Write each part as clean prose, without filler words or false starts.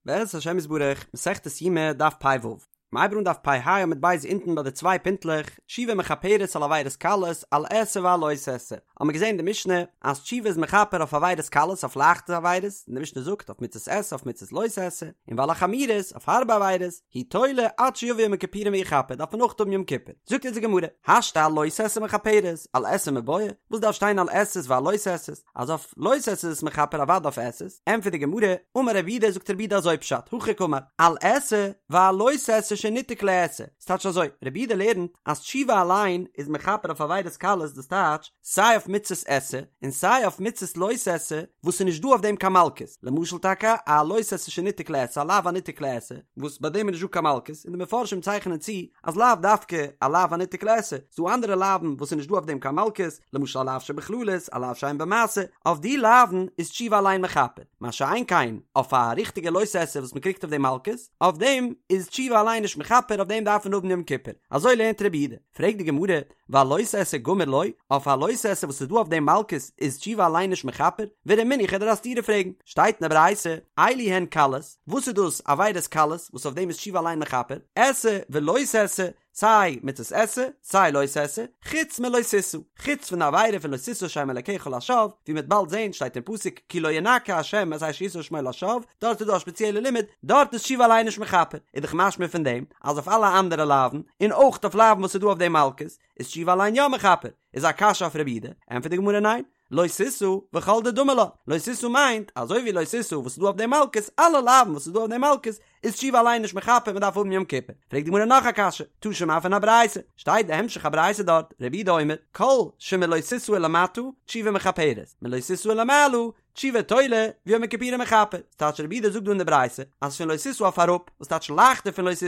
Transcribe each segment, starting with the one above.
בעזרת השם יתברך, מסכת יומא, דף פ"ו. מ'הייבט אן דף פ"ה עמוד ב' אונטן ביי די צוויי פינטלעך, תשובה מכפרת על עבירות קלות, על עשה ועל לא תעשה. האמיר געזען אין די משנה אז תשובה איז מכפר אויף עבירות קלות, אויף לייכטע עבירות, און די משנה זאגט אויף מצות עשה אויף מצות לא תעשה, און ועל החמורות, אויף הארבע עבירות, הוא תולה עד שיבוא יום הכיפורים ויכפר, דארף מען אויך האבן יום כיפור. זאגט אונז די גמרא, השתא על לא תעשה מכפרת, על עשה מיבעיא, וואס דארף שטיין על עשה'ס ועל לא תעשה'ס? אז אויף לא תעשה איז עס מכפר אוודאי אויף עשה'ס, ענטפערט די גמרא, אמר רב יהודה זאגט רב יהודה אזוי פשט, הכי קאמר, על עשה ועל לא תעשה שניתק לעשה, ס'טייטש אזוי, רב יהודה לערנט אז תשובה אליין איז מכפר אויף עבירות קלות דאס טייטש סיי אויף מצות עשה און סיי אויף מצות לא תעשה וואס איז נישט דא אויף דעם קיין מלקות, למשל טאקע א לא תעשה שניתק לעשה א לאו הניתק לעשה וואס ביי דעם איז נישט דא קיין מלקות, און די מפרשים צייכענען צו אז לאו דווקא א לאו הניתק לעשה, ס'דא אנדערע לאוו'ן וואס איז נישט דא אויף דעם קיין מלקות, למשל א לאו שבכללות, א לאו שאין בו מעשה, אויף די לאוו'ן איז תשובה אליין מכפר, מה שאין כן אויף א ריכטיגע לא תעשה וואס מ'קריגט אויף דעם מלקות, אויף דעם איז תשובה אליין נישט מכפר אויף דעם דארף מען האבן יום כיפור, אזוי לערנט רבי יהודה, פרעגט די גמרא, ועל לא תעשה גמור לא, אויף א לא תעשה וואס איז דא אויף דעם מלקות איז תשובה אליין נישט מכפר? ורמינהו כ'וועל דיר א סתירה פרעגן, שטייט אין די ברייתא, אלו הן קלות, וואס איז דאס עבירות קלות וואס אויף דעם איז תשובה אליין מכפר? עשה ולא תעשה, סיי מצות עשה, סיי לא תעשה, חוץ מלא תשא, חוץ פון די עבירה פון לא תשא שם אלקיך לשווא, ווי מ'וועט באלד זען שטייט אין פסוק כי לא ינקה ה' את אשר ישא שמו לשווא, דארט איז דא א שפעציעלע לימוד, דארט איז תשובה אליין נישט מכפר, איז דאך משמע פון דעם אז אויף אלע אנדערע לאוו'ן, און אויך אויף לאוו'ן וואס איז דא אויף דעם מלקות, איז תשובה אליין יא מכפר, איז א קשיא אויף רבי יהודה, ענטפערט די גמרא ניין, לא תשא וכל דדמי לה, לא תשא מיינט, אזוי ווי לא תשא וואס איז דא אויף דעם מלקות, אלע לאוו'ן וואס איז דא אויף דעם מלקות, איז תשובה אליין נישט מכפר מען דארף האבן יום כיפור. פרעגט די גמרא נאך א קשיא, תא שמע פון א ברייתא, שטייט די המשך הברייתא דארט, רבי יהודה אומר, כל שמלא תשא ולמטה, תשובה מכפרת, מלא תשא ולמעלה, תשובה תולה, ויום הכיפורים מכפר. ס'טייטש רבי יהודה זאגט דא אין די ברייתא, אז פון לא תשא אויף אראפ, וואס טייטש לייכטער פון לא תשא,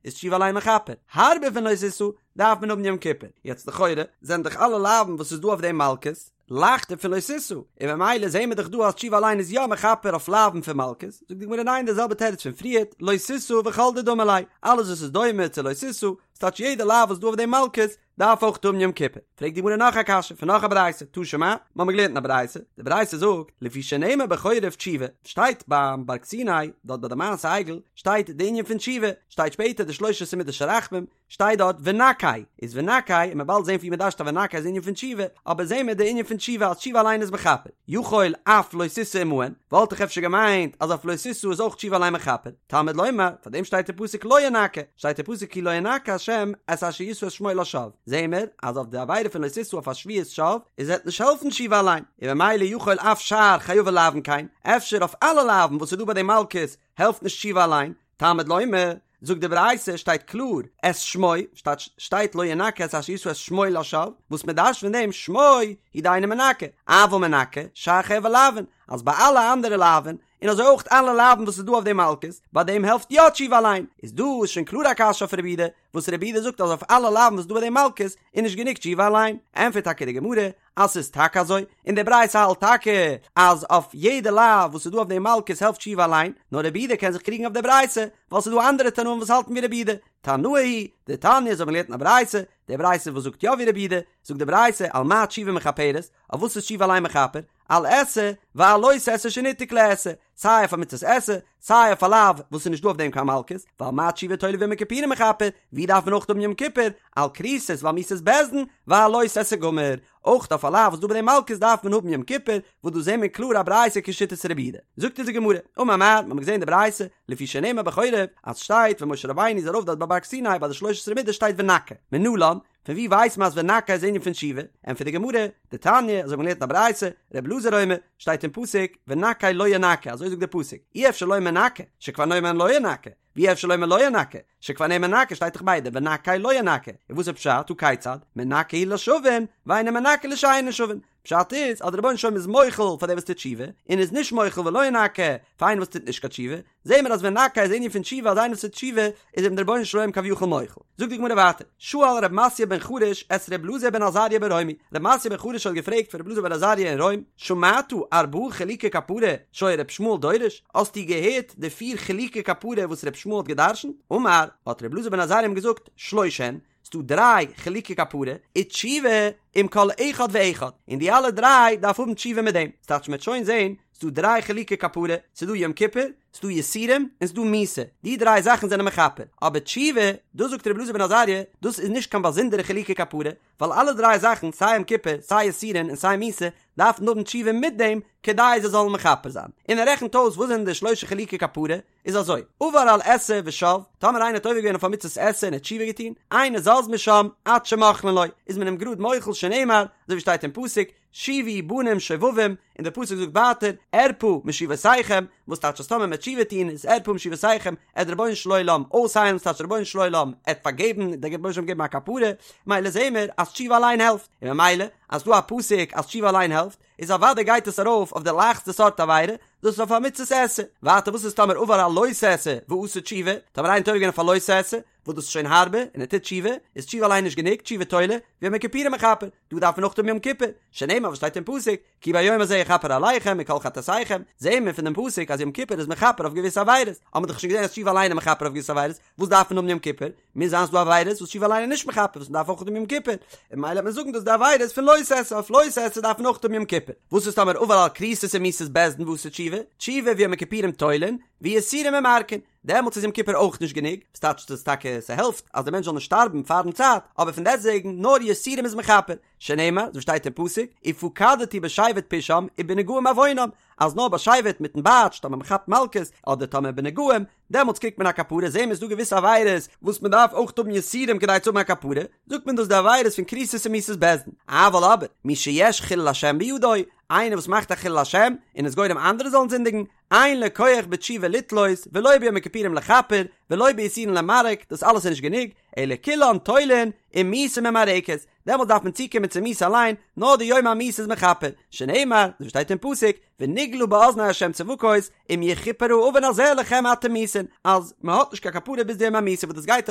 איז תשובה אליין מכפר, הארבער פון לא תשא, דארף מען האבן יום כיפור. יעצט לכאורה זענען דאך אלע לאוו'ן וואס איז דא אויף דעם מלקות, לייכטער פון לא תשא, און ממילא זעהן מיר דאך דא אז תשובה אליין איז יא מכפר אויף לאוו'ן פון מלקות, זאגט די גמרא ניין די זעלבע תירוץ פון פריערט, לא תשא וכל דדמי ליה, אלעס וואס איז דומה צו לא תשא, ס'טייטש יעדע לאו וואס איז דא אויף דעם מלקות, דארף אויך האבן יום כיפור. פרעגט די גמרא נאך א קשיא פון נאך א ברייתא, תא שמע, מ'האמיר געלערנט אין א ברייתא, די ברייתא זאגט, לפי שנאמר בחורב תשובה, שטייט ביים בארג סיני, דארט ביי די מעשה עגל, שטייט די ענין פון תשובה, שטייט שפעטער די שלש עשרה מידות של רחמים, שטייט דארט ונקה, איז ונקה, און מ'וועט באלד זען פון ווי מ'דרש'ט אז ונקה איז ענין פון תשובה, אבער זעהן מיר די ענין פון תשובה אז תשובה אליין איז מכפר, יכול אף לא תשא עמהן, וואלט איך אפשר געמיינט אז אויף לא תשא איז אויך תשובה אליין מכפר, תלמוד לומר, פאר דעם שטייט אין פסוק לא ינקה, שטייט אין פסוק כי לא ינקה השם את אשר ישא את שמו לשווא, זעהן מיר אז אויף די עבירה פון לא תשא אויף א שבועת שווא, איז וועט נישט העלפן תשובה אליין, און ממילא יכול אף שאר חייבי לאוין כן, אפשר אויף אלע לאוין וואס איז דא ביי די מלקות העלפט נישט תשובה אליין, תלמוד לומר, זאגט די ברייתא שטייט קלאר את שמו, שטייט שטייט לא ינקה את אשר ישא את שמו לשווא, וואס מען דרש'ט פון דעם שמו הוא דאינו מנקה, אבל מנקה שאר חייבי לאוין, אז ביי אלע אנדערע לאוין, און אזוי אויך אלע לאוין וואס איז דא אויף די מלקות, ביי דעם העלפט יא תשובה אליין, איז דא איז שוין קלאר א קשיא אויף רבי יהודה, וואס רבי יהודה זאגט אז אויף אלע לאוין וואס איז דא ביי די מלקות איז נישט גענוג תשובה אליין, ענטפערט טאקע די גמרא אז ס'איז טאקע אזוי, און די ברייתא האלט טאקע אז אויף יעדע לאו וואס איז דא אויף די מלקות העלפט תשובה אליין, נאר רבי יהודה קען זיך קריגן אויף די ברייתא, ווייל ס'איז דא אנדערע תנאים וואס האלטן ווי רבי יהודה, תנאי היא, דתניא אזוי האבן מיר געלערנט אין א ברייתא, די ברייתא וואס זאגט יא ווי רבי יהודה, זאגט די ברייתא על מה תשובה מכפרת, אויף וואס איז תשובה אליין מכפר, על עשה ועל לא תעשה שניתק לעשה, סיי אויף א מצות עשה, סיי אויף א לאו וואס איז נישט דא אויף דעם קיין מלקות, ועל מה תשובה תולה ויום הכיפורים מכפר, ווי דארף מען אויך האבן יום כיפור, על כריתות ועל מיתות בית דין, ועל לא תעשה גמור, אויך אויף א לאו וואס דא ביי דעם מלקות דארף מען האבן יום כיפור, וואס דא זעהן מיר קלאר א ברייתא כשיטת רבי יהודה. זאגט אונז די גמרא, אמר מר, מ'האמיר געזעהן די ברייתא, לפי שנאמר בחורב, אז שטייט ווען משה רבינו איז ארויף דארט ביי בארג סיני ביי די שלש עשרה מידות שטייט ונקה, מנלן, פון ווי ווייסט מען אז ונקה איז ענין פון תשובה? ענטפערט די גמרא, דתניא, אזוי האט מען געלערנט אין א ברייתא, ר' אלעזר אומר, שטייט אין פסוק, ונקה לא ינקה, אזוי זאגט דער פסוק, אי אפשר לומר נקה, שכבר נאמר לא ינקה, ואי אפשר לומר לא ינקה, שכבר נאמר נקה, שטייט דאך ביידע, ונקה לא ינקה, און וואס איז פשט, הא כיצד, מנקה הוא לשבים, ואינו מנקה לשאינן שבים, פשט איז אז דער רבונו של עולם איז מוחל פאר דער וואס טוט תשובה, און איז נישט מוחל ולא ינקה פאר איינער וואס טוט נישט קיין תשובה, זעהן מיר אז ונקה איז ענין פון תשובה אז איינער וואס טוט תשובה איז אים דער רבונו של עולם כביכול מוחל. זאגט די גמרא ווייטער, שאל ר' מתיא בן חרש את ר' אלעזר בן עזריה ברומי, ר' מתיא בן חרש האט געפרעגט פון ר' אלעזר בן עזריה אין רוים, שמעת ארבעה חילוקי כפרה שהיה ר' ישמעאל דורש, האסטו געהערט די פיר חילוקי כפרה וואס ר' ישמעאל האט גע'דרש'נט? אמר, האט ר' אלעזר בן עזריה אים געזאגט, שלש הן, ס'דא דריי חילוקי כפרה, ותשובה עם כל אחד ואחד, און די אלע דריי דארף האבן תשובה מיט דעם, ס'טייטש מ'וועט שוין זען, ס'דא דריי חילוקי כפרה, ס'דא יום כיפור, ס'דא יסורים און ס'דא מיתה, די דריי זאכן זענען מכפר, אבער תשובה, דאס זאגט רבי אלעזר בן עזריה, דאס איז נישט קיין באזונדערע חילוקי כפרה, ווייל אלע דריי זאכן, סיי יום כיפור, סיי יסורין און סיי מיתה, דארפן האבן תשובה מיט דעם כדי זיי זאלן מכפר זיין. און ער רעכנט אויס וואס זענען די שלשה חילוקי כפרה, איז אזוי, עבר על עשה ושב, טאמער איינער האט עובר געווען אויף א מצות עשה און ער האט תשובה געטון, אינו זז משם עד שמוחלין לו, איז מען אים גראד מוחל שנאמר, אזוי ווי שטייט אין פסוק, שובו בנים שובבים, און דער פסוק זאגט ווייטער, ארפא משובותיכם, וואס טייטש אז טאמער מ'עט תשובה טון איז ארפא משובותיכם, עט דער רבונו של עולם אויסהיילן, ס'טייטש דער רבונו של עולם עט פארגעבן, דער רבונו של עולם געבן א כפרה, מילא זעהן מיר אז תשובה אליין העלפט, און ממילא אז ס'דא א פסוק אז תשובה אליין העלפט, איז אוודאי גייט עס ארויף אויף די לייכסטע סארט עבירה, דאס איז אויף א מצות עשה. ווייטער וואס איז טאמער עבר על לא תעשה ועשה תשובה, טאמער איינער האט עובר געווען אויף א לא תעשה, וואס דאס איז שוין הארבער, און ער טוט תשובה, איז תשובה אליין נישט גענוג, תשובה תולה, ויום הכיפורים מכפר, דא דארף מען אויך האבן יום כיפור, שנאמר וואס שטייט אין פסוק, כי ביום הזה יכפר עליכם מכל חטאתיכם, זעהן מיר פון דעם פסוק אז יום כיפור איז מכפר אויף געוויסע עבירות, האבן מיר דאך שוין געזעהן אז תשובה אליין איז מכפר אויף געוויסע עבירות, וואס דארף מען האבן יום כיפור? מוז זיין ס'דא עבירות וואס תשובה אליין איז נישט מכפר וואס מ'דארף אויך האבן יום כיפור, און ממילא וועט מען זאגן דאס די עבירות פון לא תעשה, אויף לא תעשה דארף מען אויך האבן יום כיפור. וואס איז טאמער עבר על כריתות ומיתות בית דין ועשה תשובה, תשובה ויום הכיפורים תולין, ויסורים ממרקין, דעמאלטס איז יום כיפור אויך נישט גענוג, וואס טייטש דאס טאקע ס'העלפט אז דער מענטש זאל נישט שטארבן פארן צייט, אבער פון דעסטוועגן נאר יסורים איז מכפר, שנאמר, אזוי שטייט אין פסוק, ופקדתי בשבט פשעם ובנגעים עוונם, אז נאר בשבט מיטן בייטש טאמער מ'כאפט מלקות, אדער טאמער בנגעים, דעמאלטס קריגט מען א כפרה, זעהן מיר ס'דא געוויסע עבירות וואס מ'דארף אויך האבן יסורים כדי צו האבן א כפרה, זאגט מען דאס די עבירות פון כריתות און מיתות בית דין, אבל אבער, מי שיש חילול השם בידו, איינער וואס מאכט א חילול השם, און איז גורם אנדערע זאלן זינדיגן, אין לו כח בתשובה לתלות, ולא ביום הכיפורים לכפר, ולא ביסורין למרק, דאס אלעס איז נישט גענוג, אלא כולן תולין, ומיתה ממרקת, דעמאלטס דארף מען צוקומען צו מיתה אליין, נאר די יום המיתה איז מכפר, שנאמר, אזוי ווי שטייט אין פסוק, ונגלה באזני ה' צבקות, אם יכופר העון הזה לכם עד תמותון, אז מען האט נישט קיין כפרה ביז די יום המיתה וואס דאס גייט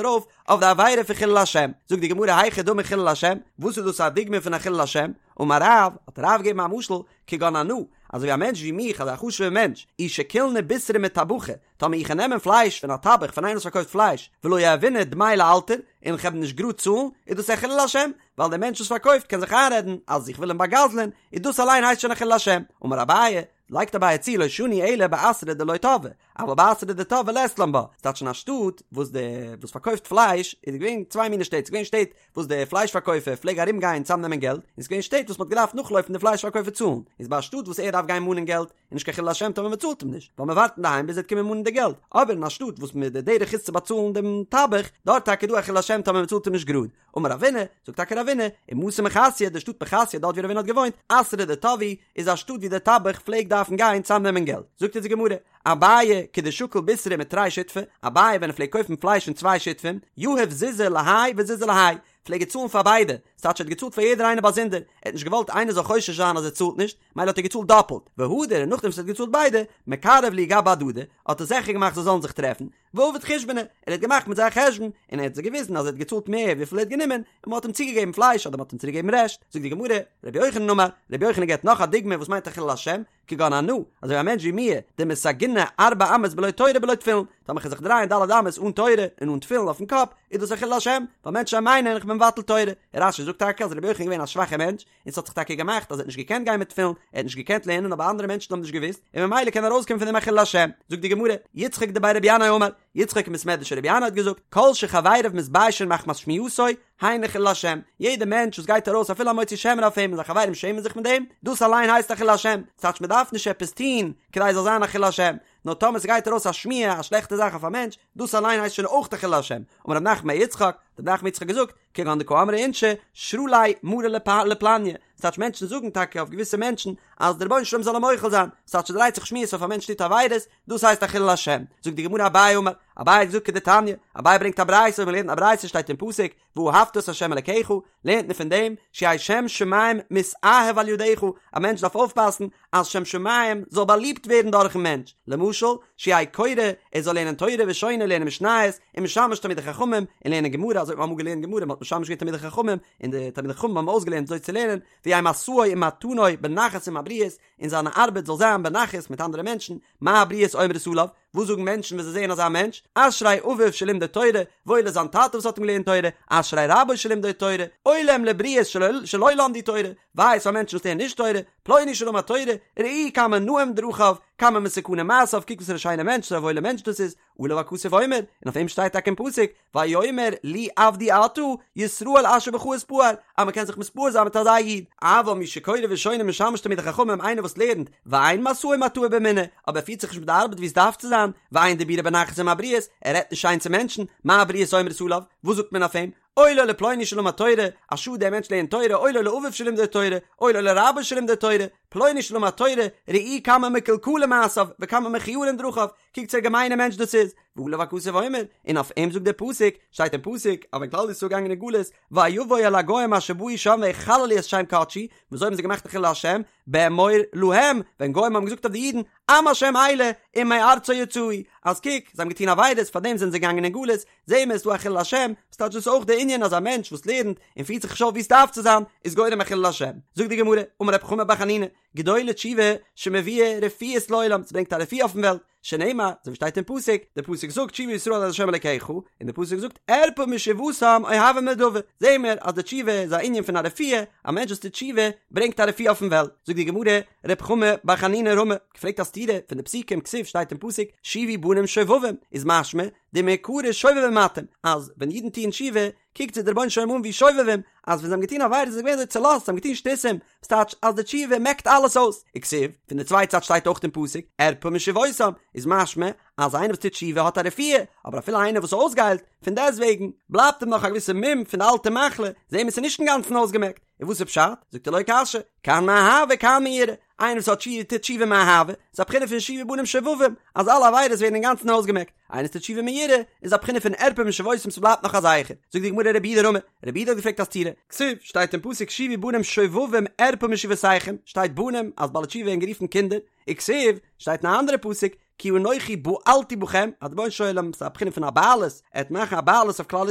ארויף אויף די עבירה פון חילול השם, זאגט די גמרא היכי דמי חילול השם, וואס איז דאס א דוגמא פון א חילול השם, אמר רב, האט רב געגעבן א משל, כגון אנא, אזוי ווי א מענטש ווי מיך, אזא חשוב'ער מענטש, אי שקילנא בישרא מטבחא, טאמער איך נעמען פלייש פון א טבח פון איינער וואס פארקויפט פלייש, ולא יהיבנא דמי לאלתר, און איך וועל נישט גראד צאלן, איז דאס א חילול השם, ווייל דער מענטש וואס פארקויפט קען זיך איינרעדן אז איך וויל אים בא'גזל'ען, איז דאס אליין הייסט שוין א חילול השם. אמר אביי, לייגט אביי צו לא שנו אלא באתרא דלא תבעי, אבל באתרא דתבעי לית לן בה, ס'טייטש אין א שטאט וואס דער וואס פארקויפט פלייש, איז געווען צוויי מיני שטעט, ס'איז געווען שטעט וואס דער פלייש פארקויפער פלעג ארום גיין צאמנעמען געלט, און ס'איז געווען שטעט וואס מ'האט געדארפט נאכלויפן די פלייש פארקויפער צאלן, איז ביי א שטאט וואס ער דארף גיין מאנען געלט, איז נישט קיין חילול השם טאמער מ'צאלט אים נישט, ווייל מ'ווארט אינדערהיים ביז ער וועט קומען מאנען די געלט, אבער אין א שטאט וואס מ' די דרך איז צו באצאלן דעם טבח, דארט טאקע איז דא א חילול השם טאמער מ'צאלט אים נישט גראד. אמר רבינא, זאגט טאקע רבינא, ומתא מחסיא, די שטאט מחסיא דארט ווי רבינא האט געוואוינט, אתרא דתבעי, איז א שטאט ווי דער טבח פלעגט דארפן גיין צאמנעמען געלט. זאגט אונז די גמרא, אביי כדשקיל בישרא מתרי שותפי, אביי ווען ער פלעגט קויפן פלייש פון צוויי שותפים, יהיב זוזא להאי וזוזא להאי, פלעג ער צאלן פאר ביידע, ס'טייטש ער האט געצאלט פאר יעדער איינער באזונדער, ער האט נישט געוואלט איינער זאל חושש זיין אז ער צאלט נישט, מילא האט ער געצאלט דאפלט, והדר און נאכדעם וואס ער האט געצאלט ביידע, מקרב להו גבי הדדי, האט ער זיכער געמאכט זיי זאלן זיך טרעפן, ועביד חושבנא, ער האט געמאכט מיט זיי א חשבון, און ער האט זיי געוויזן אז ער האט געצאלט מער וויפיל ער האט גענומען, און מען האט אים צוגעגעבן פלייש אדער מען האט אים צוריקגעגעבן רעשט, זאגט די גמרא, רבי יוחנן אמר, רבי יוחנן געבט נאך א דוגמא וואס מיינט א חילול השם, כגון אנא, אזוי ווי א מענטש ווי מיר, דמסגינא ארבע אמות בלא תורה בלא תפילין, טאמער כ'וועל זיך דרייען ד' אמות אן תורה און אן תפילין אויפן קאפ, איז דאס א חילול השם, ווייל מענטשן מיינען איך בין מבטל תורה. רש"י זאגט טאקע אז רבי יוחנן איז געווען א שוואכער מענטש, און ס'האט זיך טאקע געמאכט אז ער האט נישט געקענט גיין מיט תפילין, ער האט נישט געקענט לערנען אבער אנדערע מענטשן האבן נישט געוואוסט, און ממילא קען ארויסקומען פון דעם א חילול השם. זאגט די גמרא, יצחק דבי רבי ינאי אמר, יצחק אין בית מדרש רבי ינאי האט געזאגט, כל שחבריו מתביישין מחמת שמועתו, היינו חילול השם, יעדער מענטש וואס גייט ארויס אפילו א מוציא שם רע אויף אים און זיין חברים שעמען זיך מיט דעם, דאס אליין הייסט א חילול השם, ס'טייטש מ'דארף נישט עפעס טון כדי עס זאל זיין א חילול השם, נאר טאמער ס'גייט ארויס א שמועה א שלעכטע זאך אויף א מענטש, דאס אליין הייסט שוין אויך א חילול השם, אמר רב נחמן בר יצחק, האט רב נחמן יצחק געזאגט, כגון דקאמרי אינשי, שרא ליה מריה לפלניא, ס'טייטש מענטשן זאגן טאקע אויף געוויסע מענטשן אז דער רבונו של עולם זאל אים מוחל זיין, ס'טייטש ס'דרייט זיך שמועות אויף א מענטש טוט עבירות, דאס הייסט א חילול השם. זאגט די גמרא אביי אמר, אביי האט געזאגט כדתניא, אביי ברענגט א ברייתא, מ'לערנט אין א ברייתא שטייט אין פסוק, ואהבת את ה' אלקיך, לערנט מען פון דעם, שיהא שם שמים מתאהב על ידך, א מענטש דארף אויפפאסן אז שם שמים זאל באליבט ווערן דורכן מענטש, למשל, שיהא קורא, ער זאל לערנען תורה ושונה, לערנען משניות, ומשמש תלמידי חכמים, און לערנען גמרא, אזוי האט מען אמאל געלערנט גמרא, מען האט משמש געווען תלמידי חכמים, און די תלמידי חכמים האבן אויסגעלערנט אזוי צו לערנען, ויהא משאו ומתנו בנחת עם הבריות, און זיינע ארבעט זאל זיין בנחת מיט אנדערע מענטשן, מה הבריות אומרות עליו? וואס זאגן מענטשן ווען זיי זעען אזא מענטש? אשרי אביו שלימדו תורה, וואויל איז זיין טאטע וואס האט אים געלערנט תורה, אשרי רבו שלימדו תורה, אוי להם לבריות שלא למדו תורה, וויי איז פאר מענטשן וואס לערנען נישט תורה, פלוני שלמד תורה, ראו כמה נאים דרכיו, כמה מתוקנים מעשיו, קוק וואס פאר א שיינער מענטש, וואס פאר א וואוילער מענטש דאס איז, עליו הכתוב אומר, און אויף אים שטייט טאקע אין פסוק, ויאמר לי עבדי אתה, ישראל אשר בך אתפאר, אז מען קען זיך מתפאר זיין מיט אזא איד. אבל מי שקורא ושונה ומשמש תלמידי חכמים איינער וואס לערנט, ואין משאו ומטעו באמונה, אבער ער פירט זיך נישט מיט די ארבעט ווי עס דארף צו זיין, ואין דיבורו בנחת עם הבריות, ער רעדט נישט שיין צו מענטשן, מה הבריות אומרות עליו, וואס זאגט מען אויף אים? אוי לו לפלוני שלמד תורה, א שאד דער מענטש לערנט תורה, אוי לו לאביו שלימדו תורה, אוי לו לרבו שלימדו תורה, פלוני שלמד תורה, ראו כמה מקולקלים מעשיו וכמה מכוערים דרכיו, קוקטס וואס א געמיינע מענטש דאס איז, ועליו הכתוב אומר, און אויף אים זאגט דער פסוק, שטייט אין פסוק, אז ווען כלל ישראל איז געגאנגען אין גלות, ויבוא אל הגוים אשר באו שם ויחללו את שם קדשי, וויאזוי האבן זיי געמאכט א חילול השם, באמור להם, ווען גוים האבן געזאגט אויף די אידן, עם השם אלה, ומארצו יצאו, אז קוק, זיי האבן געטון עבירות, פארדעם זענען זיי געגאנגען אין גלות, זעהן מיר עס איז דא א חילול השם, ס'טייטש דאס אויך די ענין אז א מענטש וואס לערנט און פירט זיך נישט אויף ווי עס דארף צו זיין, איז גורם א חילול השם. זאגט די גמרא, אמר רב חמא בר חנינא, גדולה תשובה שמביאה רפואות לעולם, ס'ברענגט א רפואה אויפן וועלט, שנאמר, אזוי ווי שטייט אין פסוק, די פסוק זאגט שובה ישראל עד ה' אלקיך, און די פסוק זאגט ארפא משובתם אוהבי נדבה, זעהן מיר אז די תשובה איז א ענין פון א רפואה, א מענטש וואס טוט תשובה ברענגט א רפואה אויפן וועלט, זאגט די גמרא, רב חמא בר חנינא רמי, געפרעגט א סתירה פון די פסוקים, כתיב שטייט אין פסוק, שובו בנים שובבים, איז משמע, דמעיקרא שובבים אתם, אז ווען אידן טוען תשובה, קוקט זיי דער רבונו של עולם אן ווי שובבים, אז ווען זיי האבן געטון עבירות זענען זיי געווען אזוי צולאזט, זיי האבן געטון שטותים, וואס טייטש אז די תשובה מעקט אלעס אויס, וכתיב, פון די צווייטע צד שטייט אויך אין פסוק, ארפא משובתם, איז משמע אז איינער וואס טוט תשובה האט א רפואה, אבער אפילו איינער וואס איז אויסגעהיילט, פון דעסטוועגן, בלייבט אים נאך א געוויסע מום פון די אלטע מחלה, זעהן מיר ס'איז נישט אינגאנצן אויסגעמעקט, און וואס איז פשט? זאגט ער לא קשיא, כאן מאהבה כאן מיראה, איינער וואס האט תשובה טוט תשובה מאהבה, איז א בחינה פון שובו בנים שובבים, אז אלע עבירות ווערן אינגאנצן אויסגעמעקט, איינער וואס טוט תשובה מיראה, איז א בחינה פון ארפא משובתם ס'בלייבט נאך א זכר, זאגט די גמרא רב יהודה רמי, רב יהודה האט געפרעגט א סתירה, כתיב, שטייט אין פסוק שובו בנים שובבים ארפא משובותיכם, שטייט בנים אז בעלי תשובה ווערן גערופן קינדער, וכתיב, שטייט אין א אנדערע פסוק, כי אנכי בעלתי בכם, אז דער רבונו של עולם ס'איז א בחינה פון א בעלות, ער וועט מאכן א בעלות אויף כלל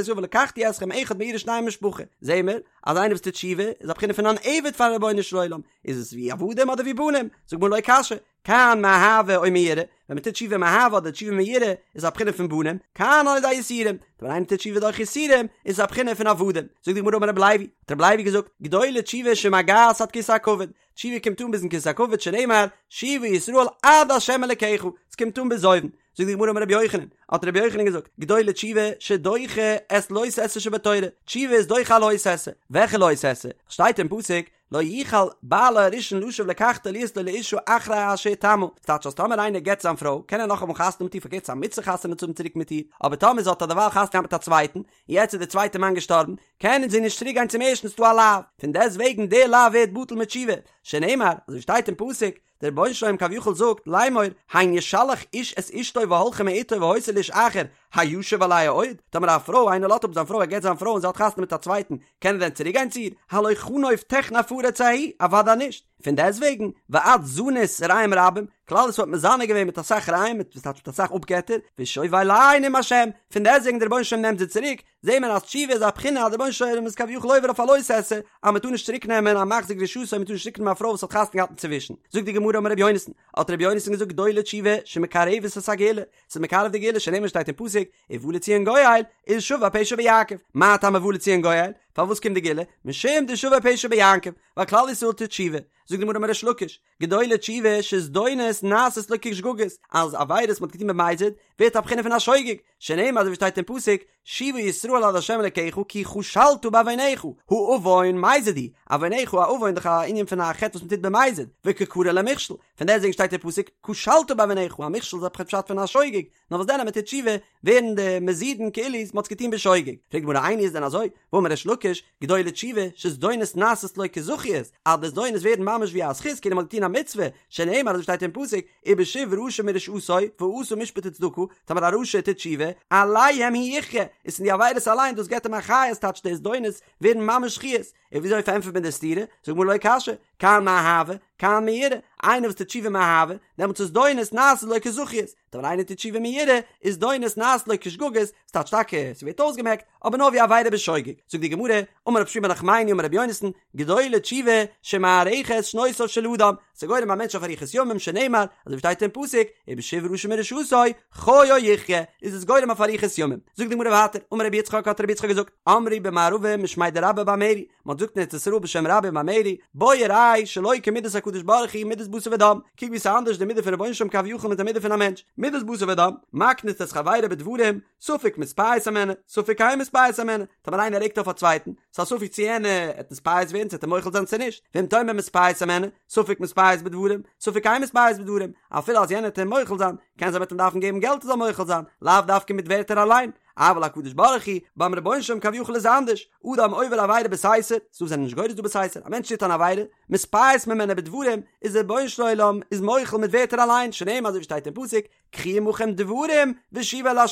ישראל ולקחתי אתכם אחד מעיר ושניים ממשפחה, זעהן מיר אז איינער וואס טוט תשובה איז א בחינה פון אן עבד פארן רבונו של עולם, איז עס ווי עבדים אדער ווי בנים? זאגט גמרא לא קשיא, כאן מאהבה או מיראה, ווען מען טוט תשובה מאהבה אדער תשובה מיראה איז א בחינה פון בנים, כאן על ידי יסורים, ווען איינער טוט תשובה דורך יסורים איז עס א בחינה פון עבדים, זאגט די גמרא אמר רבי לוי, האט רבי לוי געזאגט, גדולה תשובה שמגעת עד כסא הכבוד, תשובה קומט אן ביזן כסא הכבוד שנאמר שובה ישראל עד ה' אלקיך, עס קומט אן ביז אויבן, זאגט די גמרא אמר רבי יוחנן, האט רבי יוחנן געזאגט, גדולה תשובה שדוחה את לא תעשה שבתורה, תשובה איז דוחה א לא תעשה, וועלכע לא תעשה? שטייט אין פסוק, לא יוכל בעלה הראשון לשוב לקחתה להיות לו לאשה אחרי אשר הוטמאה, ס'טייטש אז טאמער איינער גט זיין פרוי קען ער נאכאמאל חתונה מיט איר, פארקערט ס'איז א מצוה חתונה צו האבן צוריק מיט איר, אבער טאמער זי האט א דערווייל חתונה געהאט מיט א צווייטן, און יעצט איז דער צווייטער מאן געשטארבן, קען זי נישט צוריק גיין צום ערשטן ס'איז דא א לאו, פון דעסט וועגן דער לאו ווערט בטל מיט תשובה, שנאמר, אזוי שטייט אין פסוק, דער רבונו של עולם כביכול זאגט, לאמור, הן ישלח איש את אשתו והלכה מאתו והיתה לאיש אחר, הישוב אליה עוד? טאמער א פרוי, איינער לאזט אפ זיין פרוי, ער גט זיין פרוי און זי האט חתונה מיט א צווייטן, קען ער דען צוריק גיין צו איר? הלא חנוף תחנף הארץ ההיא, אוודאי נישט. פון דעסט וועגן, ואת זנית רעים רבים, כלל ישראל האט מזנה געווען מיט אסאך רעים, מיט וואס טייטש מיט אסאך אפגעטער, ושוב אלי' נאם השם, פון דעסט וועגן דער רבונו של עולם נעמט זי צוריק, זעהט מען אז תשובה איז א בחינה אז דער רבונו של עולם איז כביכול עובר אויף א לא תעשה, אז מען טאר נישט צוריק נעמען א מחזיר גרושתו, מען טאר נישט צוריק נעמען א פרוי וואס האט חתונה געהאט אינצווישן. זאגט די גמרא אמר רבי יונתן, האט רבי יונתן געזאגט גדולה תשובה שמקרבת את הגאולה, ס'איז מקרב די גאולה שנאמר שטייט אין פסוק, ובא לציון גואל, ולשבי פשע ביעקב, מה טעם ובא לציון גואל? פארוואס קומט די גאולה? משום דשבי פשע ביעקב, ווייל כלל ישראל טוט תשובה. זאגט די גמרא אמר ריש לקיש, גדולה תשובה שזדונות נעשות לו כשגגות, אז עבירות מ'האט געטון במזיד, ווערט א בחינה פון א שוגג, שנאמר אזוי ווי שטייט אין פסוק, שובה ישראל עד ה' אלקיך כי כשלת בעונך, הא עון מזיד הוא, עונך א עון דאך א ענין פון א חטא וואס מ'טוט במזיד, וקא קרי ליה מכשול, פון דעסטוועגן שטייט אין פסוק, כשלת בעונך, א מכשול איז א פשט פון א שוגג, נאר וואס דען אז מען טוט תשובה ווערן די מזידין כאילו מען האט עס געטון בשוגג, פרעגט די גמרא איני איז דען אזוי, והאמר ריש לקיש, גדולה תשובה, שזדונות נעשות לו כזכיות, אז די זדונות ווערן ממש ווי א זכות כאילו מען האט געטון א מצוה, שנאמר אזוי שטייט אין פסוק, ובשוב רשע מרשעתו, ועשה משפט וצדקה, טאמער א רשע טוט תשובה, עליהם הוא יחיה, איז פון די עבירות אליין דאס געבט אים א חיות טייטש די זדונות ווערן ממש זכיות, און וויאזוי פארענטפערט מען די סתירה, זאגט גמרא לא קשיא, כאן מאהבה, כאן מיראה, איינער וואס טוט תשובה מאהבה, דעמאלטס איז זדונות נעשות לו כזכיות, טאמער איינער טוט תשובה מיראה, איז זדונות נעשות לו כשגגות, ס'טייטש טאקע ס'ווערט אויסגעמעקט, אבער נאר ווי עבירה בשוגג. זאגט די גמרא, אמר רב שמואל בר נחמני אמר רבי יונתן, גדולה תשובה שמארכת שנותיו של אדם, ס'גורם א מענטש אויף אריכות ימים שנאמר, אזוי ווי שטייט אין פסוק, ובשוב רשע מרשעתו, חיו יחיה, איז עס גורם אויף אריכות ימים. זאגט די גמרא ווייטער, אמר רבי יצחק האט רבי יצחק געזאגט, אמרו במערבא משמיה דרבה בר מרי, מען האט געזאגט אין ארץ ישראל בשם רבה בר מרי, בוא וראה שלא כמידת הקדוש ברוך הוא מידת בשר ודם, קוק ווי ס'איז אנדערש די מידה פון רבונו של עולם כביכול מיט די מידה פון א מענטש, מידת בשר ודם, מקניט את חברו בדברים, ספק מתפייס הימנו, ספק אין מתפייס הימנו, טאמער איינער רעגט אויף א צווייטן, ס'איז א ספק צו יענער עט נתפייס ווערן צו עט אים מוחל זיין צו נישט, ואם תאמר מתפייס הימנו, ספק מתפייס בדברים, ספק אין מתפייס בדברים, אפילו אז יענער עט אים מוחל זיין, קען זיין מ'עט אים דארפן געבן געלט ער זאל מוחל זיין, לאו דווקא מיט ווערטער אליין, אבל הקדוש ברוך הוא, ביים רבונו של עולם כביכול איז אנדערש, אדם עובר עבירה בסתר, ס'דא זענען נישט גורס דא בסתר, א מענטש טוט אן עבירה, מתפייס ממנו בדברים, איז דער רבונו של עולם איז מוחל מיט ווערטער אליין, שנאמר אזוי ווי שטייט אין פסוק, קחו עמכם דברים ושובו אל ה',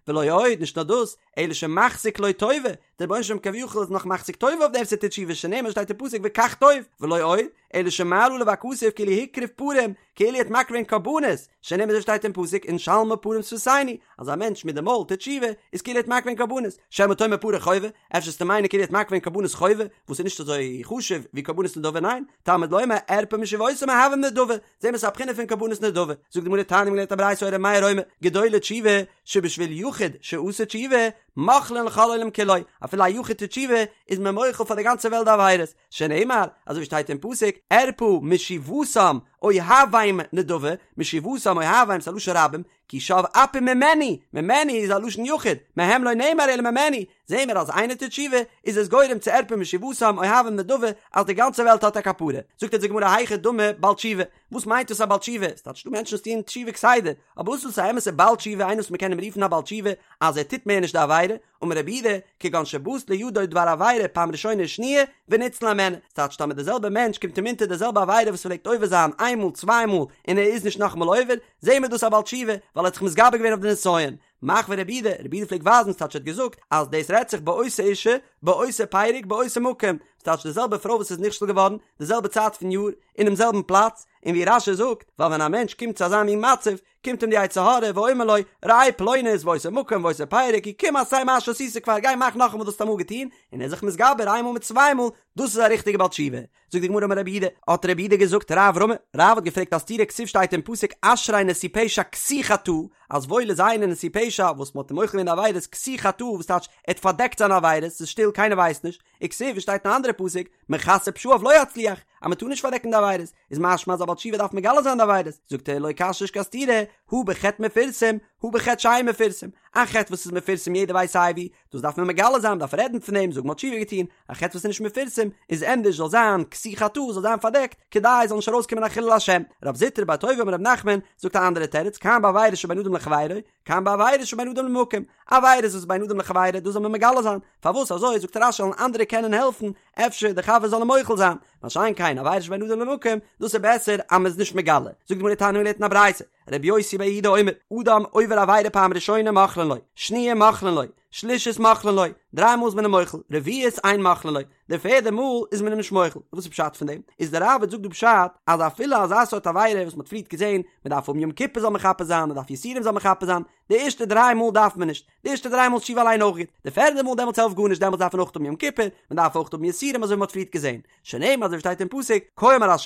ולא עוד, נישט נאר דאס, אלא שמחזיק לו טובה, דער רבונו של עולם כביכול איז נאך מחזיק טובה אויף דעם וואס ער טוט תשובה שנאמר שטייט אין פסוק וקח טוב, ולא עוד, אלא שמעלה עליו הכתוב כאילו הקריב פרים, כאילו ער האט מקריב געווען קרבנות, שנאמר אזוי שטייט אין פסוק ונשלמה פרים שפתינו, אז א מענטש מיט די מויל טוט תשובה, איז כאילו ער האט מקריב געווען קרבנות, שמא תאמר פרי חובה, אפשר וועסטו מיינען כאילו ער האט מקריב געווען קרבנות חובה, וואס איז נישט אזוי חשוב ווי קרבנות נדבה, ניין, תלמוד לומר ארפא משובתם אוהבים נדבה, זעהן מיר ס'איז א בחינה פון קרבנות נדבה, זאגט די גמרא תניא מ'האט געלערנט א ברייתא היה ר' מאיר אומר, גדולה תשובה שבשביל יחיד שעשה תשובה, מוחלין לכל העולם כולו, אפילו א יחיד טוט תשובה, איז מען מוחל פאר די גאנצע וועלט די עבירות, שנאמר, אזוי ווי שטייט אין פסוק, ארפא משובתם אוהבם נדבה, משובתם אוהבם ס'איז א לשון רבים, כי שב אפי ממנו, ממנו איז א לשון יחיד, מהם לא נאמר אלא ממנו, זעהן מיר אז איינער טוט תשובה, איז עס גורם צו ארפא משובתם אוהבם נדבה, אז די גאנצע וועלט האט א כפרה. זאגט אונז די גמרא היכי דמי בעל תשובה, וואס מיינט דאס א בעל תשובה? ס'טייטש ס'דא מענטשן וואס טוען תשובה כסדר, אבער וואס איז דאס א אמת'ע בעל תשובה, איינער וואס מ'קען אים רופן א בעל תשובה אז ער טוט מער נישט די עבירה, אמר רב יהודה, כגון שבאת לידו דבר עבירה פעם ראשונה ושניה, וניצל הימנה, ס'טייטש טאמער די זעלבע מענטש קומט אים אונטער די זעלבע עבירה וואס פלעגט עובר זיין איין מאל צוויי מאל און ער איז נישט נאכאמאל עובר, זעהן מיר דאס א בעל תשובה, ווייל ער האט זיך מתגבר געווען אויף די נסיון. מחוי רב יהודה, רב יהודה פלעגט ווייזן, ס'טייטש ער האט געזאגט, אז דאס רעדט זיך באותה אישה, באותו פרק, באותו מקום, ס'טייטש די זעלבע פרוי וואס איז נכשל געווארן, די זעלבע צייט פון יאר, אינעם זעלבן פלאץ, און ווי רש"י זאגט, ווייל ווען א מענטש קומט צו אזא מין מצב, קומט אים די יצר הרע ואומר לו, ראה פלונית ואותו מקום ואותו פרק, קום עשה מה שעשית כבר, גיי מאך נאכאמאל וואס האסט אמאל געטון, און ער איז זיך מתגבר איינמאל מיט צוויי מאל, דאס איז א ריכטיגע בעל תשובה. זאגט די גמרא אמר רב יהודה, האט רב יהודה געזאגט רב רמי, רב האט געפרעגט א סתירה כתיב שטייט אין פסוק אשרי נשוי פשע כסוי חטאה, אז וואויל איז איינער נשוי פשע וואס מען האט אים מוחל געווען די עבירות כסוי חטאה וואס טייטש ער האט פארדעקט זיינע עבירות ס'איז שטיל קיינער ווייסט נישט, וכתיב שטייט אין א אנדערע פסוק מכסה פשעיו לא יצליח אז מען טאר נישט פארדעקן די עבירות, איז משמע אז א בעל תשובה דארף מגלה זיין די עבירות, זאגט ער לא קשיא נישט קיין סתירה, הא בחטא מפורסם, הא בחטא שאין מפורסם, א חטא וואס איז מפורסם יעדער ווייסט סייווי, דאס דארף מען מגלה זיין, מ'דארף רעדן פון דעם, זאגן מ'האט תשובה געטון, א חטא וואס איז נישט מפורסם, איז ענדערש זאל זיין כסוי חטאה, זאל זיין פארדעקט, כדי עס זאל נישט ארויסקומען א חילול השם. רב זוטרא בר טוביה אמר רב נחמן, זאגט א אנדערע תירוץ, כאן בעבירות שבין אדם לחבירו, כאן בעבירות שבין אדם למקום, עבירות וואס איז בין אדם לחבירו, דאס זאל מען מגלה זיין, פארוואס אזוי, זאגט רש"י זאלן אנדערע קענען העלפן, אפשר די חבר זאל אים מוחל זיין, מה שאין כן עבירות שבין אדם למקום, דאס איז בעסער אז מען איז נישט מגלה. זאגט די גמרא תניא מ'לערנט אין א ברייתא, רבי יוסי בר יהודה אומר, אדם עובר עבירה פעם ראשונה מוחלין לו, שניה מוחלין לו, שלישית מוחלין לו, דריי מאל איז מען אים מוחל, רביעית אין מוחלין לו, די פערדע מאל איז מען אים נישט מוחל, וואס איז פשט פון דעם? איז דער ראב"ד זאגט דא פשט אז אפילו אזא סארט עבירה וואס מען האט פריערט געזען, מען דארף האבן יום כיפור זאל מכפר זיין, מען דארף יסורים זאל מכפר זיין, די ערשטע דריי מאל דארף מען נישט, די ערשטע דריי מאל איז תשובה אליין אויך גוט, די פערדע מאל דעמאלטס העלפט גארנישט דעמאלטס דארף מען אויך האבן יום כיפור, מען דארף אויך האבן יסורים אזוי ווי מען האט פריערט געזען, שנאמר אזוי ווי שטייט אין פסוק, כה אמר ה',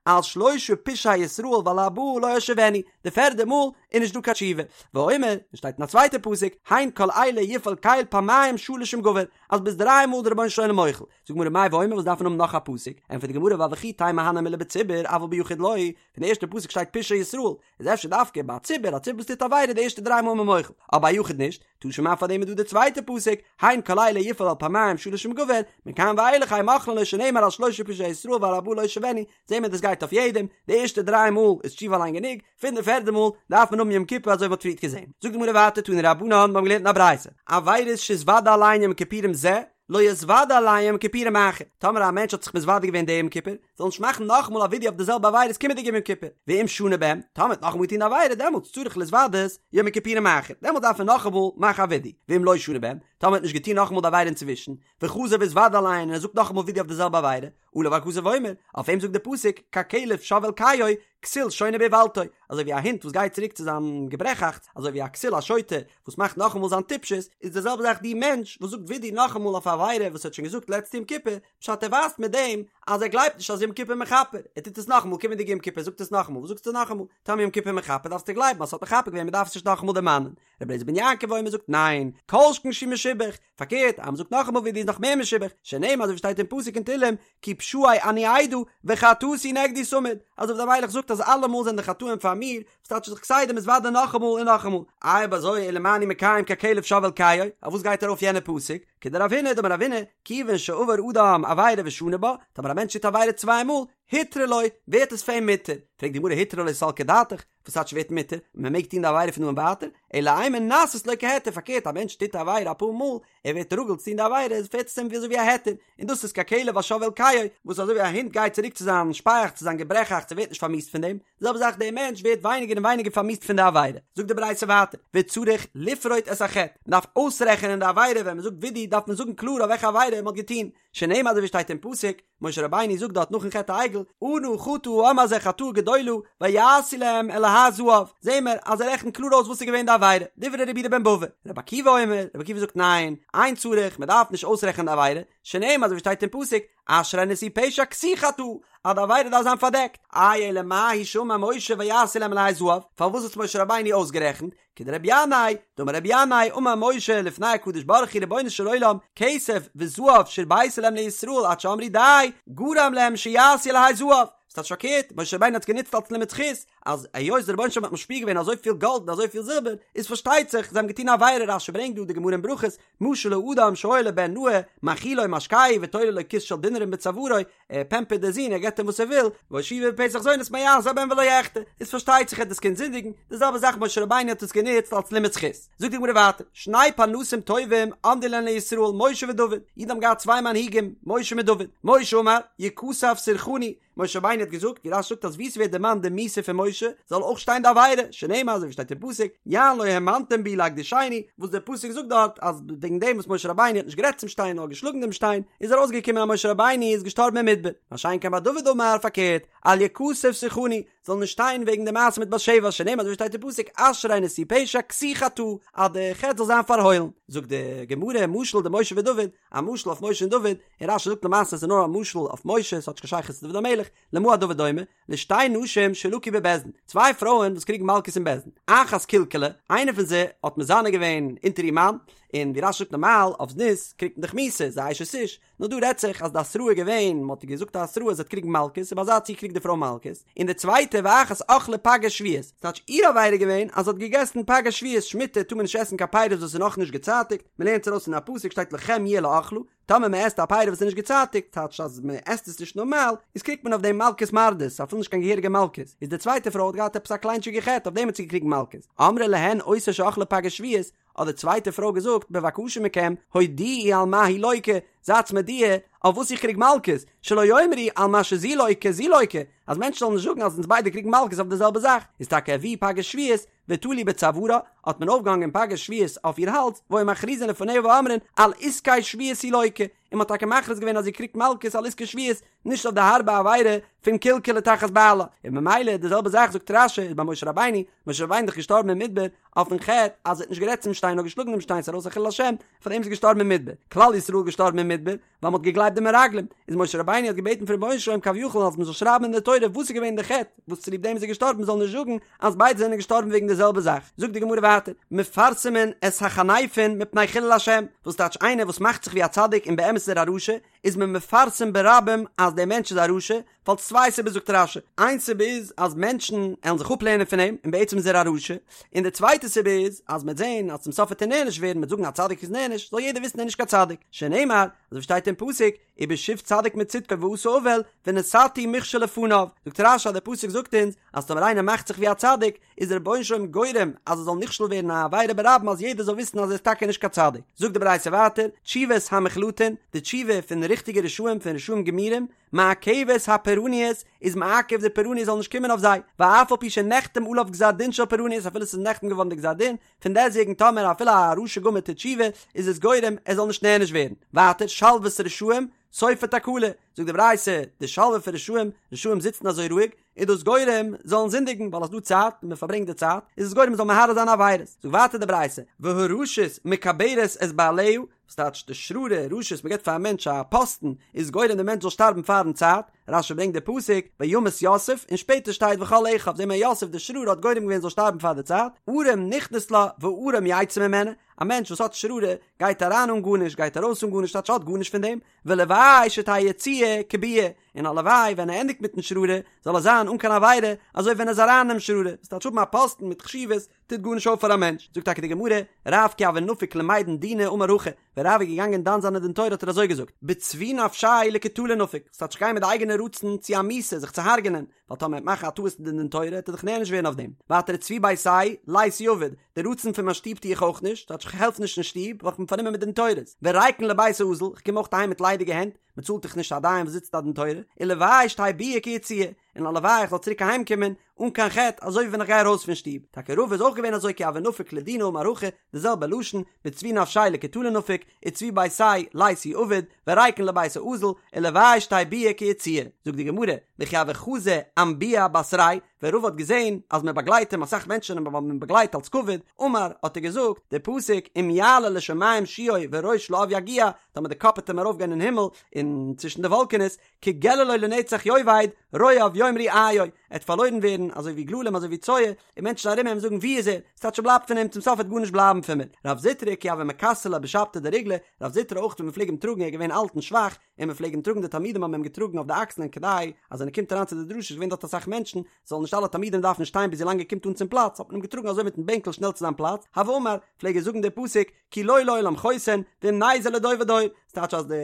על שלשה פשעי ישראל ועל ארבעה לא אשיבנו, די פערדע מאל איז נישט דא קיין תשובה, ואומר, און שטייט אין א צווייטע פסוק, הן כל אלה יפעל קל פעמיים שלש עם גבר, אז ביז דריי מאל איז דער רבונו של עולם מוחל, זאגט די גמרא מאי ואומר וואס דארף מען האבן נאך א פסוק, ענטפערט די גמרא ווייל וכי תימא הני מילי בציבור אבל ביחיד לא, פון די ערשטע פסוק שטייט פשעי ישראל, איז אפשר דווקא ביי א ציבור, א ציבור וואס טוט עבירה די ערשטע דריי מאל איז מען מוחל, אבער א יחיד נישט, תא שמע פאר דעם איז דא די צווייטע פסוק, הן כל אלה יפעל אל פעמיים שלש עם גבר, מכאן ואילך אין מוחלין לו שנאמר על שלשה פשעי ישראל ועל ארבעה לא אשיבנו, זעהן מיר דאס גייט אויף יעדעם, די ערשטע דריי מאל איז תשובה אליין גענוג, פון די פערדע מאל דארף מען האבן יום כיפור אזוי ווי מ'האט פריערט געזעהן. זאגט די גמרא ווייטער תנו רבנן, מיר האבן געלערנט אין א ברייתא, עבירות שהתוודה עליהן יום כיפורים זה, לא יתוודה עליהן יום כיפורים אחר, טאמער א מענטש האט זיך מתוודה געווען די יום כיפור, זאל נישט מאכן נאכאמאל א ווידוי אויף די זעלבע עבירות קומענדיגע יום כיפור, ואם שנה בהם, טאמער האט נאכאמאל געטון די עבירה דעמאלטס צריך להתוודות יום הכיפורים האחר, דעמאלטס דארף ער נאכאמאל מאכן א ווידוי, ואם לא שנה בהם, טאמער האט נישט געטון נאכאמאל די עבירה אינצווישן, וחזר והתוודה עליהן און ער זאגט נאכאמאל ווידוי אויף די זעלבע עבירה, עליו הכתוב אומר, אויף אים זאגט די פסוק, ככלב שב אל קיאו, כסיל שונה באולתו, אזוי ווי א הונט וואס גייט צוריק צו זיין געברעכאכטס, אזוי ווי א כסיל א שוטה וואס מאכט נאכאמאל זיין טיפשות, איז די זעלבע זאך די מענטש וואס זאגט ווידוי נאכאמאל אויף א עבירה וואס ער האט שוין געזאגט לעצטע יום כיפור, פשט ער ווייזט מיט דעם אז ער גלייבט נישט אז יום כיפור מכפר, ער טוט עס נאכאמאל קומענדיגע יום כיפור זאגט עס נאכאמאל, וואס זאגסטו נאכאמאל? טאמער יום כיפור מכפר דארפסטו גלייבן אז ס'האט מכפר געווען מ'דארף עס נישט נאכאמאל דערמאנען. רבי אליעזר בן יעקב אומר זאגט ניין, כל שכן שהוא משובח, פארקערט אז מ'זאגט נאכאמאל ווידוי איז נאך מער משובח, שנאמר אזוי ווי שטייט אין פסוק אין תהלים, כי פשעי אני אדע וחטאתי נגדי תמיד, אז דוד המלך זאגט אז אלעמאל זענען די חטאים פאר מיר, וואס טייטש זיך כסדר מתוודה נאכאמאל און נאכאמאל, איי אויב אזוי אלא מה אני מקיים ככלב שב אל קיאו, אויף וואס גייט ארויף יענע פסוק, כדרב הונא דאמר רב הונא, כיוון שעבר אדם עבירה ושנה בה, טאמער א מענטש טוט עבירה צוויי מאל, הותרה לו, ווערט עס פאר אים מותר, פרעגט די גמרא הותרה לו סלקא דעתך, וואס טייטש ווערט מותר? מען מעג טון די עבירה פון דא און ווייטער? אלא אימא נעשית לו כהיתר, פארקערט א מענטש טוט א עבירה אפאר מאל, ער ווערט רגיל צו טון די עבירה, איז ווערט עס אים ווי אזוי ווי א היתר, און דאס איז ככלב השב אל קיאו, וואס אזוי ווי א הונט גייט צוריק צו זיין שפייעכץ צו זיין געברעכאכץ ער ווערט נישט פארמיאוסט פון דעם, די זעלבע זאך דער מענטש ווערט ווייניגער און ווייניגער פארמיאוסט פון די עבירה. זאגט די ברייתא ווייטער, וצריך לפרוט את החטא, מען דארף אויסרעכענען די עבירה, ווען מען זאגט וידוי דארף מען זאגן קלאר אויף וועלכע עבירה מען האט געטון, שנאמר אזוי ווי שטייט אין פסוק, משה רבינו זאגט דארט נאכן חטא העגל, אנא חטא העם הזה חטאה גדולה, ויעשו להם אלהי זהב, זעהן מיר אז ער רעכנט קלאר אויס וואס איז געווען די עבירה, דברי רבי יהודה בן בבא, רבי עקיבא אומר, רבי עקיבא זאגט ניין, אין צריך, מען דארף נישט אויסרעכענען די עבירה, שנאמר אזוי ווי שטייט אין פסוק, אשרי נשוי פשע כסוי חטאה, אז די עבירה דארף זיין פארדעקט, איי אלא מאי שאמר משה ויעשו להם אלהי זהב, פארוואס האט משה רבינו אויסגערעכנט, כדרבי ינאי, דאמר רבי ינאי, אמר משה לפני הקדוש ברוך הוא רבונו של עולם, כסף וזהב שהרבית להם לישראל עד שאמרו די, גרם להם שיעשו אלהי זהב. ס'טייטש פארקערט, משה רבינו האט עס גענוצט אלס לימוד זכות, אז היות דער רבונו של עולם האט משפיע געווען אזויפיל גאלד און אזויפיל זילבער, איז פארשטייט זיך זיי האבן געטון א עבירה, רש"י ברענגט דא די גמרא אין ברכות, משל לאדם שהיה לו בן נאה, מאכילו ומשקהו ותולה לו כיס של דינרים בצווארו, ער פעמפערט די זון ער געבט אים וואס ער וויל, והושיבו בפתח זונות מה יעשה הבן ולא יחטא, איז פארשטייט זיך עט דאס קינד זינדיגן, די זעלבע זאך משה רבינו האט עס גענוצט אלס לימוד זכות. זאגט די גמרא ווייטער, שני פרנסים טובים עמדו להן לישראל משה ודוד, אידן האבן געהאט צוויי מנהיגים, משה מיט דוד, משה אמר, יכתב סורחני, משה רבינו האט געזאגט, ווי רש"י זאגט אז וואו ס'ווערט דערמאנט די מיתה פון משה, זאל אויך שטיין די עבירה, שנאמר אזוי ווי שטייט אין פסוק, יען לא האמנתם בי להקדישני, וואס דער פסוק זאגט דארט אז וועגן דעם וואס משה רבינו האט נישט גערעדט צום שטיין נאר געשלאגן דעם שטיין, איז ארויסגעקומען אז משה רבינו איז געשטארבן אין מדבר, מה שאין כן ביי דוד אמר פארקערט, אל יכתב סורחני, זאל נישט שטיין וועגן די מעשה מיט בת שבע, שנאמר אזוי ווי שטייט אין פסוק, אשרי נשוי פשע כסוי חטאה, אז די חטא זאל זיין פארהוילן. זאגט די גמרא, משל דמשה ודוד, א משל אויף משה און דוד, און רש"י זאגט למעשה עס איז נאר א משל אויף משה, עס האט נישט קיין שייכות צו דוד המלך, למה הדבר דומה? לשתי נשים שלקו בבית דין, צוויי פרויען וואס קריגן מלקות אין בית דין, אחת קלקלה, איינע פון זיי האט מזנה געווען אונטער איר מאן, און ווי רש"י זאגט נארמאל אויף זנות קריגט מען דאך מיתה, ס'איז א אשת איש, נאר דא רעדט זיך אז די התראה איז געווען, מען האט איר געזאגט א התראה אז זי וועט קריגן מלקות, און ביי אזא ציור קריגט די פרוי מלקות, און די צווייטע ואחת אכלה פגי שביעית, ס'טייטש איר עבירה איז געווען אז זי האט געגעסן פגי שביעית, שמיטה טאר מען נישט עסן קיין פירות וואס איז נאכנישט געצייטיגט, מען לערנט עס ארויס פון א פסוק שטייט לכם יהיה לאכלה, טאמער מען עסט א פירי וואס איז נישט געצייטיגט, טייטש אז מען עסט עס נישט נארמאל, איז קריגט מען אויף דעם מלקות מרדות, אפילו נישט קיין געהעריגע מלקות, איז די צווייטע פרוי האט געהאט עפעס א קליינטשיגע חטא אויף דעם האט זי געקריגן מלקות, אמרה להן אותה שאכלה פגי שביעית, האט די צווייטע פרוי געזאגט, בבקשה מכם, הודיעו על מה היא לוקה, זייטס מודיע אויף וואס איך קריג מלקות, שלא יאמרו על מה שזו לוקה זו לוקה, אז מענטשן זאלן נישט זאגן אז אונז ביידע קריגן מלקות אויף די זעלבע זאך, איז טאקע הביאו פגי שביעית, ותלו בצווארה, האט מען אויפגעהאנגען פגי שביעית אויף איר האלז, והיו מכריזין לפניה ואומרין, על עסקי שביעית היא לוקה, און מ'האט טאקע מכריז געווען אז זי קריגט מלקות על עסקי שביעית, נישט אויף די הארבע עבירה פון קלקלה תחת בעלה, און ממילא די זעלבע זאך זאגט רש"י איז ביי משה רבינו, משה רבינו איז דאך געשטארבן אין מדבר אויפן חטא אז ער האט נישט גערעדט צום שטיין נאר געשלאגן דעם שטיין ס'איז ארויס א חילול השם, פאר דעם איז ער געשטארבן אין מדבר, כלל ישראל איז געשטארבן אין מדבר ווייל מ'האט געגלייבט די מרגלים, איז משה רבינו האט געבעטן פון רבונו של עולם כביכול אז מ'זאל שרייבן אין די תורה וואס איז געווען די חטא וואס צוליב דעם איז ער געשטארבן מ'זאל נישט זאגן אז ביידע זענען געשטארבן וועגן די זעלבע זאך, זאגט די גמרא ווייטער, מפרסמין את החניפין מפני חילול השם, וואס טייטש איינער וואס מאכט זיך ווי א צדיק און באמת איז ער א רשע, איז מען מפרסם ברבים אז דער מענטש איז א רשע, ווייל צוויי סיבות זאגט רש"י, איין סיבה איז אז מענטשן עלן זיך אפלערנען פון אים און בעצם איז ער א רשע, און די צווייטע סיבה איז אז מ'עט זען אז צום סוף וועט ער נענש ווערן מ'עט זאגן א צדיק איז נענש, זאל יעדער וויסן ער איז נישט קיין צדיק, שנאמר, אזוי ווי שטייט אין פסוק, ובשוב צדיק מצדקו ועשה עול, ונתתי מכשול לפניו, זאגט רש"י אז דער פסוק זאגט אונז אז טאמער איינער מאכט זיך ווי א צדיק, איז דער רבונו של עולם גורם אז ער זאל נכשל ווערן א עבירה ברבים אז יעדער זאל וויסן אז ער איז טאקע נישט קיין צדיק. זאגט די ברייתא ווייטער, תשובת המוחלטין, די תשובה פון ריכטיגע רשעים פון רשעים גמורים, מעכבת הפורעניות, איז מעכב די פורעניות זאל נישט קומען אויף זיי, ואף על פי שנחתם עליו גזר דין של פורעניות אפילו ס'איז נחתם געווארן די גזר דין, פון דעסטוועגן טאמער אפילו א רשע גמור טוט תשובה איז עס גורם ער זאל נישט נענש ווערן. ווייטער שלוות רשעים סופה תקלה, זאגט די ברייתא, די שלווה פון רשעים, רשעים זיצן אזוי רואיג, איז דאס גורם זאלן זינדיגן, ווייל עס איז דא צייט און מען פארברענגט די צייט, איז עס גורם מען זאל מהרהר זיין עבירות. זאגט ווייטער די ברייתא, והרשות מקברת את בעליה, וואס טייטש די שררה, רשות, מען געבט פאר א מענטש א פאסטן, איז גורם די מענטש זאל שטארבן פארן צייט, רש"י ברענגט די פסוק, וימת יוסף, און שפעטער שטייט וכל אחיו, זעהן מיר יוסף די שררה האט גורם געווען זאל שטארבן פאר די צייט, ערום נכנס לה וערום יצא ממנה, א מענטש וואס האט שררה גייט אריין אן גארנישט גייט ארויס אן גארנישט טייטש האט גארנישט פון דעם, ולוואי שתהא יציאה כביאה, און הלוואי ווען ער ענדיגט מיטן שררה זאל ער זיין אן קיין עבירה, אזוי ווען ער איז אריין אינעם שררה, וואס טייטש האבן א פאסטן מיט חשיבות טוט גארנישט אויף פאר א מענטש, זאגט טאקע די גמרא, רב כי הוה נפיק למידן דינא אמר הכי, ווען רב איז געגאנגען דן זיין א דין תורה האט ער אזוי געזאגט, בצבי נפשיה לקטלא נפיק, וואס טייטש כ'גיי מיט די אייגענע רצון צו א מיתה זיך צו הרג'נען, ווייל טאמער ער וועט מאכן א טעות אין די דין תורה וועט ער דאך נענש ווערן אויף דעם, ווייטער וצבי ביתיה ליתי עביד, די רצון פון מיין שטוב טו איך אויך נישט, טייטש כ'העלף נישט אין שטוב ווייל כ'בין פארנומען מיט דין תורות, וריקן לבית האזיל, כ'קום אויך אהיים מיט ליידיגע הענט, מ'צאלט דאך נישט א דיין וואס זיצט א דין תורה, ולוואי שתהא ביאה כיציאה, און הלוואי איך זאל צוריק אהיים קומען אן קיין חטא אזוי ווי ווען איך גיי ארויס פון שטוב, טאקע רבא איז אויך געווען אזוי כי הוה נפיק לדינא אמר הכי, די זעלבע לשון, בצבי נפשיה לקטלא נפיק, וצבי ביתיה ליתי עביד, וריקן לבית האזיל, ולוואי שתהא ביאה כיציאה. זאגט די גמרא, וכי הוה חזי אמבוהא בתריה, ווען רבא האט געזען אז מען באגלייט אים אסאך מענטשן האבן אים באגלייט אלס כבוד, אמר, האט ער געזאגט, די פסוק, אם יעלה לשמים שיאו וראש לעב יגיע, טאמער די קאפ וועט אים ארויפגיין אין הימל, און צווישן די וואלקענעס, כגללו לנצח יאבד, רואיו יאמרו איו, ער וועט פארלוירן ווערן אזוי ווי גללים אזוי ווי צואה, און מענטשן ארום אים זאגן ווי איז ער, ס'טייטש ס'בלייבט פון אים, צום סוף וועט גארנישט בלייבן פון מיר. רב זוטרא כי הוה מכסרי ליה בשבתא דריגלא, רב זוטרא אויך ווען מ'פלעג אים טראגן ער איז געווען אלט און שוואך, און מ'פלעג אים טראגן די תלמידים האבן אים געטראגן אויף די אקסלען כדי אז ווען ער קומט אריין צו די דרשה איז געווען דארט אסאך מענטשן, זאלן נישט אלע תלמידים דארפן שטיין ביז ווילאנג ער קומט אן צום פלאץ, האט מען אים געטראגן אזוי מיטן בענקל שנעל צו זיין פלאץ, הוה אמר, פלעג ער זאגן די פסוק, כי לא לעולם חוסן, ואם נזר לדור ודור, ס'טייטש אז די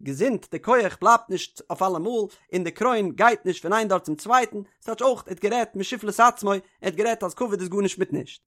געזונט, די כח בלייבט נישט אויף אלעמאל, און די קרוין גייט נישט פון איין דור צום צווייטן, ס'טייטש אויך, ער האט גערעדט משפלות עצמו, ער האט גערעדט אז כבוד איז גארנישט מיט נישט.